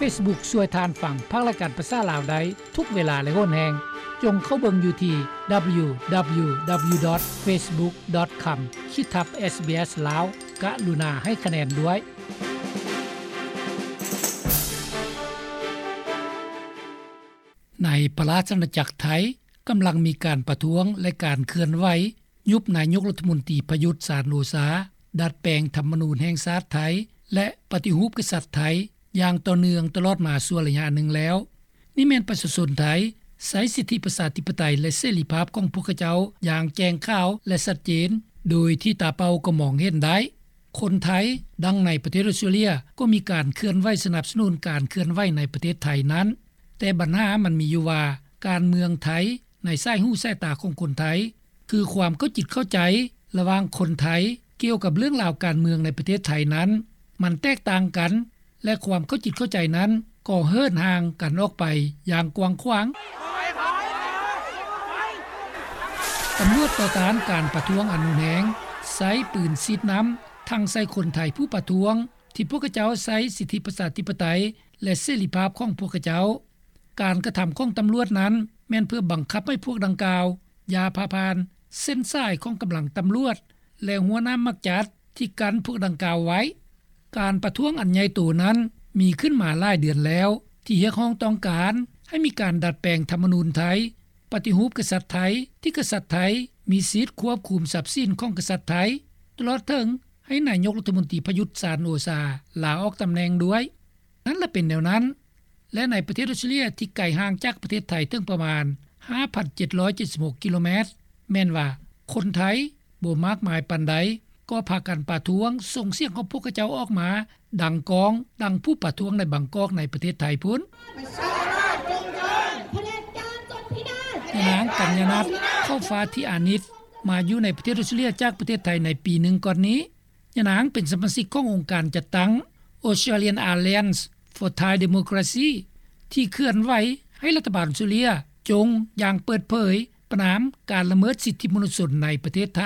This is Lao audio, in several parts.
Facebook ຊ່ວຍທ່ານຟັງພາກລາຍການພາສາລາວໄດ້ທຸກເວລາ ແລະ ໂຫນແຮງ. ຈົ່ງເຂົ້າເບິ່ງຢູ່ທີ່ www.facebook.com/ SBS Lao. ກະລຸນາໃຫ້ຄະແນນດ້ວຍ. ໃນພະລາຊະອານາຈັກໄທ ກຳລັງມີການປະທ້ວງ ແລະ ການເຄື່ອນໄຫວຍຸບນາຍົກລັດຖະມົນຕີ ປະຍຸດ ຈັນໂອຊາ, ດັດແປງທຳມະນູນແຫ່ງຊາດໄທ ແລະ ປະຕິຮູບກະສັດໄທ ຢ່າງຕໍ່ເນື່ອງຕະຫຼອດມາຊົ່ວໄລຍະໜຶ່ງແລ້ວ. ນີ້ແມ່ນປະຊາຊົນໄທໃຊ້ສິດທິປະຊາທິປະໄຕ ແລະ ເສລີພາບຂອງພວກເຂົາເຈົ້າຢ່າງແຈ້ງຂາວ ແລະ ຊັດເຈນ ໂດຍທີ່ຕາເປົ່າກໍມອງເຫັນໄດ້. ຄົນໄທ ດັ່ງໃນປະເທດອົດສະຕຣາເລຍ ກໍມີການເຄື່ອນໄຫວສະໜັບສະໜູນການເຄື່ອນໄຫວໃນປະເທດໄທນັ້ນ. ແຕ່ບັນຫາມັນມີຢູ່ວ່າ ການເມືອງໄທໃນສາຍຫູສາຍຕາຂອງຄົນໄທ ຄືຄວາມເຂົ້າຈິດເຂົ້າໃຈລະຫວ່າງຄົນໄທກ່ຽວກັບເລື່ອງລາວການເມືອງໃນປະເທດໄທນັ້ນ ມັນແຕກຕ່າງກັນ ແລະ ຄວາມເຂົ້າຈິດເຂົ້າໃຈນັ້ນກໍເຫີນຫ່າງກັນອອກໄປຢ່າງກວ້າງຂວາງ. ຕຳຫຼວດຕໍ່ຕ້ານການປະທ້ວງອັນຮຸນແຮງ ໃຊ້ປືນສີດນ້ຳ ທັງໃສ່ຄົນໄທຜູ້ປະທ້ວງ ທີ່ພວກເຂົາເຈົ້າໃຊ້ສິດທິປະຊາທິປະໄຕ ແລະ ເສລີພາບຂອງພວກເຂົາເຈົ້າ. ການກະທຳຂອງຕຳຫຼວດນັ້ນ ແມ່ນເພື່ອບັງຄັບໃຫ້ພວກດັ່ງກ່າວຢ່າຜ່າຜ່ານເສັ້ນສາຍຂອງກຳລັງຕຳຫຼວດ ແລະ ຮົ້ວນ້ຳໝາກຈັດທີ່ກັ້ນພວກດັ່ງກ່າວໄວ້. ການປະທ້ວງອັນໃຫຍ່ໂຕນັ້ນມີຂຶ້ນມາຫຼາຍເດືອນແລ້ວ ທີ່ຮຽກຮ້ອງຕ້ອງການໃຫ້ມີການດັດແປງທຳມະນູນໄທ, ປະຕິຮູບກະສັດໄທ ທີ່ກະສັດໄທມີສິດຄວບຄຸມຊັບສິນຂອງກະສັດໄທ ຕະຫຼອດເຖິງໃຫ້ນາຍົກລັດຖະມົນຕີ ປະຍຸດ ຈັນໂອຊາ ລາອອກຕຳແໜ່ງດ້ວຍ. ນັ້ນລະເປັນແນວນັ້ນ ແລະ ໃນປະເທດອົດສະຕຣາເລຍທີ່ໄກຫ່າງຈາກປະເທດໄທເຖິງປະມານ ຫ້າພັນເຈັດຮ້ອຍເຈັດສິບຫົກ ກິໂລແມັດ ແມ່ນວ່າຄົນໄທບໍ່ມາກມາຍປານໃດ ກໍພາກັນປະທ້ວງ ສົ່ງສຽງຂອງພວກເຂົາເຈົ້າອອກມາ ດັງກ້ອງ ດັ່ງຜູ້ປະທ້ວງໃນບາງກອກໃນປະເທດໄທພຸ້ນ. ຍານາງ ກັນຍານັດ ເຂົ້າຟ້າທິອານິດ ມາຢູ່ໃນປະເທດອົດສະຕຣາເລຍຈາກປະເທດໄທໃນປີໜຶ່ງກ່ອນນີ້. ຍານາງເປັນສະມາຊິກຂອງອົງການຈັດຕັ້ງ Australian Alliance for Thai Democracy ທີ່ເຄື່ອນໄຫວໃຫ້ລັດຖະບານອົດສະຕຣາເລຍຈົ່ງຢ່າງເປີດເຜີຍປະນາມການລະເມີດສິດທິມະນຸດຊົນໃນປະເທດໄທ,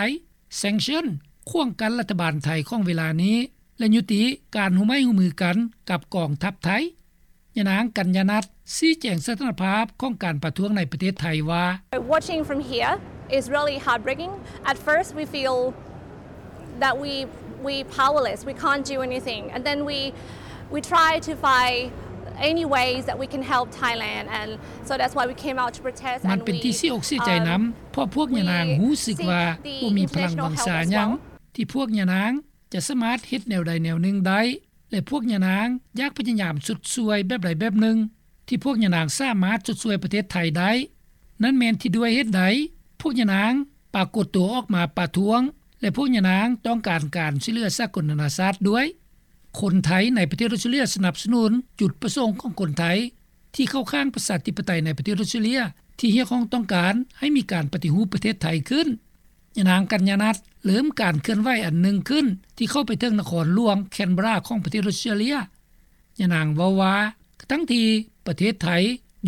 sanction ຂວາງກັ້ນລັດຖະບານໄທຂອງເວລານີ້ ແລະ ຍຸຕິການຮ່ວມໄມ້ຮ່ວມມືກັນກັບກອງທັບໄທ. ຍານາງ ກັນຍານັດ ຊີ້ແຈງສະຖານະພາບຂອງການປະທ້ວງໃນປະເທດໄທວ່າ: Watching from here is really heartbreaking. At first we feel that we we powerless, we can't do anything, and then we we try to find any ways that we can help Thailand, and so that's why we came out to protest. ມັນເປັນທີ່ເສຍອົກເສຍໃຈນຳ ເພາະພວກຍານາງຮູ້ສຶກວ່າບໍ່ມີພະລັງວັງຊາຫຍັງ ທີ່ພວກຍານາງຈະສາມາດເຮັດແນວໃດແນວໜຶ່ງໄດ້ ແລະ ພວກຍານາງຢາກພະຍາຍາມຊົດຊ່ວຍແບບໃດແບບໜຶ່ງ ທີ່ພວກຍານາງສາມາດຊົດຊ່ວຍປະເທດໄທໄດ້. ນັ້ນແມ່ນທີ່ດ້ວຍເຫດໃດພວກຍານາງປາກົດຕົວອອກມາປະທ້ວງ ແລະ ພວກຍານາງຕ້ອງການການຊ່ວຍເຫຼືອສາກົນນານາຊາດດ້ວຍ. ຄົນໄທໃນປະເທດອົດສະຕຣາເລຍສະໜັບສະໜູນຈຸດປະສົງຂອງຄົນໄທທີ່ເຂົ້າຂ້າງປະຊາທິປະໄຕໃນປະເທດອົດສະຕຣາເລຍ ທີ່ຮຽກຮ້ອງຕ້ອງການໃຫ້ມີການປະຕິຮູບປະເທດໄທຂຶ້ນ. ຍານາງ ກັນຍານັດ ເລີ່ມການເຄື່ອນໄຫວອັນໜຶ່ງຂຶ້ນ ທີ່ເຂົ້າໄປເຖິງນະຄອນຫຼວງ Canberra ຂອງປະເທດອົດສະຕຣາເລຍ. ຍານາງເວົ້າວ່າ ທັງທີ່ປະເທດໄທ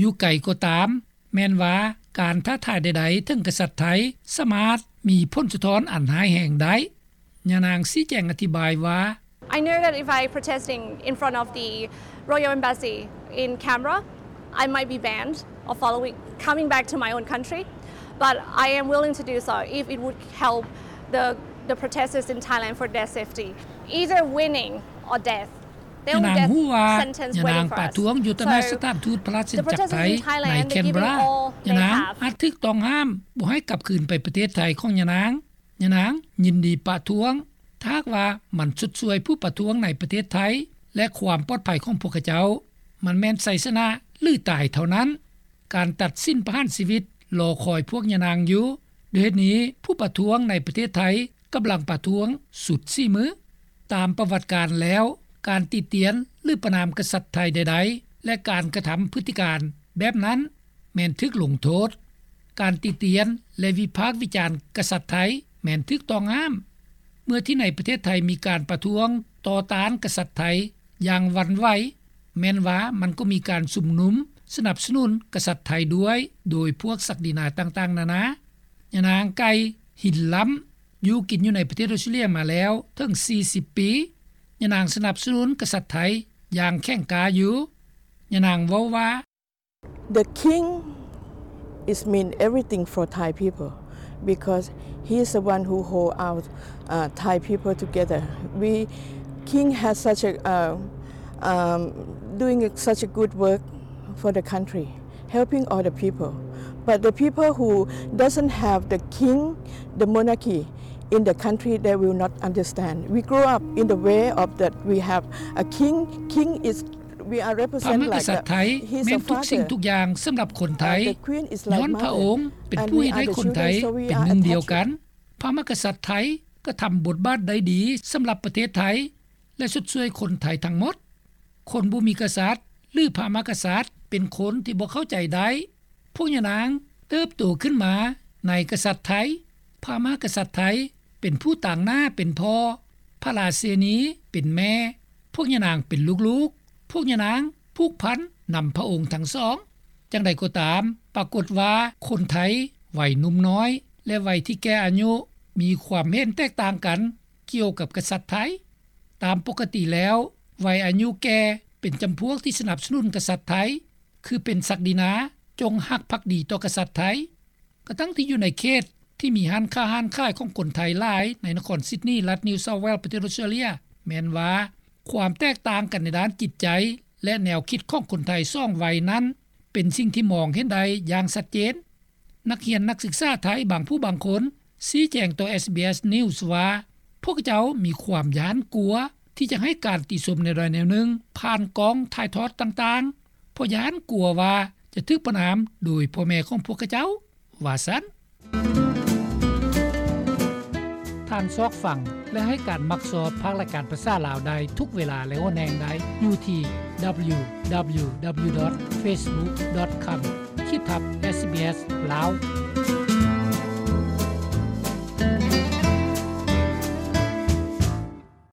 ຢູ່ໄກກໍຕາມ, ແມ່ນວ່າການທ້າທາຍໃດໆເຖິງກະສັດໄທ ສາມາດມີຜົນສະທ້ອນອັນຮ້າຍແຮງໄດ້. ຍານາງຊີ້ແຈງອະທິບາຍວ່າ: I know that if I protesting in front of the Royal Embassy in Canberra, I might be banned of following, coming back to my own country, but I am willing to do so if it would help the the protesters in Thailand for their safety. Either winning or death. ຍານາງຮູ້ວ່າ ຍານາງປະທ້ວງຢູ່ຕໍ່ໜ້າສະຖານທູດພະລາຊະອານາຈັກໄທໃນ Canberra, ຍານາງອາດຖືກຕ້ອງຫ້າມບໍ່ໃຫ້ກັບຄືນໄປປະເທດໄທຂອງຍານາງ. ຍານາງຍິນດີປະທ້ວງ ຖ້າຫາກວ່າມັນຊົດຊ່ວຍຜູ້ປະທ້ວງໃນປະເທດໄທ ແລະ ຄວາມປອດໄພຂອງພວກເຂົາເຈົ້າ. ມັນແມ່ນໄຊຊະນະ ຫຼື ຕາຍເທົ່ານັ້ນ. ການຕັດສິນປະຫານຊີວິດລໍຄອຍພວກຍານາງຢູ່. ດ້ວຍເຫດນີ້, ຜູ້ປະທ້ວງໃນປະເທດໄທກຳລັງປະທ້ວງສຸດສີມື. ຕາມປະຫວັດການແລ້ວ, ການຕິຕຽນ ຫຼື ປະນາມກະສັດໄທໃດໆ ແລະ ການກະທຳພຶດຕິການແບບນັ້ນ ແມ່ນຖືກລົງໂທດ. ການຕິຕຽນ ແລະ ວິພາກວິຈານກະສັດໄທແມ່ນຖືກຕ້ອງຫ້າມ. ເມື່ອທີ່ໃນປະເທດໄທມີການປະທ້ວງຕໍ່ຕ້ານກະສັດໄທຢ່າງຫວັ່ນໄຫວ, ແມ່ນວ່າມັນກໍມີການຊຸມນຸມສະໜັບສະໜູນກະສັດໄທດ້ວຍ ໂດຍພວກສັກດີນາຕ່າງໆນານາ. ຍານາງ ໄກ່ ຫິນລ້ຳ ຢູ່ກິນຢູ່ໃນປະເທດອົດສະຕຣາເລຍມາແລ້ວເຖິງສີ່ສິບປີ. ຍານາງສະໜັບສະໜູນກະສັດໄທຢ່າງແຂງກ້າຢູ່. ຍານາງເວົ້າວ່າ The king is mean everything for Thai people because he is the one who hold our uh, Thai people together. We king has such a uh, um, doing such a good work for the country, helping all the people. But the people who doesn't have the king, the monarchy in the country, they will not understand. We grow up in the way of that we have a king. King is we are ພະ represent ມະກະ like ສັດໄທ a, he's ແມ່ນ a ທຸກສິ່ງ father. ທຸກຢ່າງສຳລັບຄົນໄທ Uh, the queen is ຍ້ອນ like ພະອົງ mother. ເປັນ And ຜູ້ we ເຮັດ are ໃຫ້ the ຄົນໄທ children, so we ເປັນ are ໜຶ່ງ ດຽວ attached. ກັນ. ພະມະກະສັດໄທກະທຳບົດບາດໄດ້ດີສຳລັບປະເທດໄທ ແລະ ຊົດຊ່ວຍຄົນໄທທັງໝົດ. ຄົນບໍ່ມີກະສັດ ຫຼື ພະມະກະສັດ ເປັນຄົນທີ່ບໍ່ເຂົ້າໃຈໄດ້. ພວກຍານາງເຕີບໂຕຂຶ້ນມາໃນກະສັດໄທ. ພະມະກະສັດໄທເປັນຜູ້ຕາງໜ້າເປັນພໍ່, ພະລາຊິນີເປັນແມ່, ພວກຍານາງເປັນລູກໆ. ພວກຍານາງຜູກພັນນຳພະອົງທັງສອງ. ຈັ່ງໃດກໍຕາມ, ປາກົດວ່າຄົນໄທໄວໜຸ່ມນ້ອຍ ແລະ ໄວທີ່ແກ່ອາຍຸ ມີຄວາມເຫັນແຕກຕ່າງກັນກ່ຽວກັບກະສັດໄທ. ຕາມປົກກະຕິແລ້ວ, ໄວອາຍຸແກ່ເປັນຈຳພວກທີ່ສະໜັບສະໜູນກະສັດໄທ, ຄືເປັນສັກດິນາ ຈົ່ງຮັກພັກດີຕໍ່ກະສັດໄທ. ກະທັງທີ່ຢູ່ໃນເຂດທີ່ມີຮ້ານຄ້າຮ້ານຂາຍຂອງຄົນໄທຫຼາຍໃນນະຄອນຊິດນີ ລັດນິວເຊົາແວລ ປະເທດອົດສະຕຣາເລຍ ແມ່ນວ່າຄວາມແຕກຕ່າງກັນໃນດ້ານຈິດໃຈ ແລະ ແນວຄິດຂອງຄົນໄທສອງໄວນັ້ນ ເປັນສິ່ງທີ່ມອງເຫັນໄດ້ຢ່າງຊັດເຈນ. ນັກຮຽນນັກສຶກສາໄທບາງຜູ້ບາງຄົນຊີ້ແຈງຕໍ່ ເອສບີເອສ News ວ່າ ພວກເຈົ້າມີຄວາມຢ້ານກົວທີ່ຈະໃຫ້ການຕິຊົມແນວໃດແນວໜຶ່ງຜ່ານກ້ອງຖ່າຍທອດຕ່າງໆ ເພາະຢ້ານກົວວ່າຈະຖືກປະນາມໂດຍພໍ່ແມ່ຂອງພວກເຂົາເຈົ້າ ວ່າຊັ້ນ. ທ່ານຊອກຟັງ ແລະ ໃຫ້ການມັກຊອບພາກລາຍການພາສາລາວໄດ້ທຸກເວລາ ແລະ ຫົວແຮງໄດ້ຢູ່ທີ່ www.facebook.com/sbslao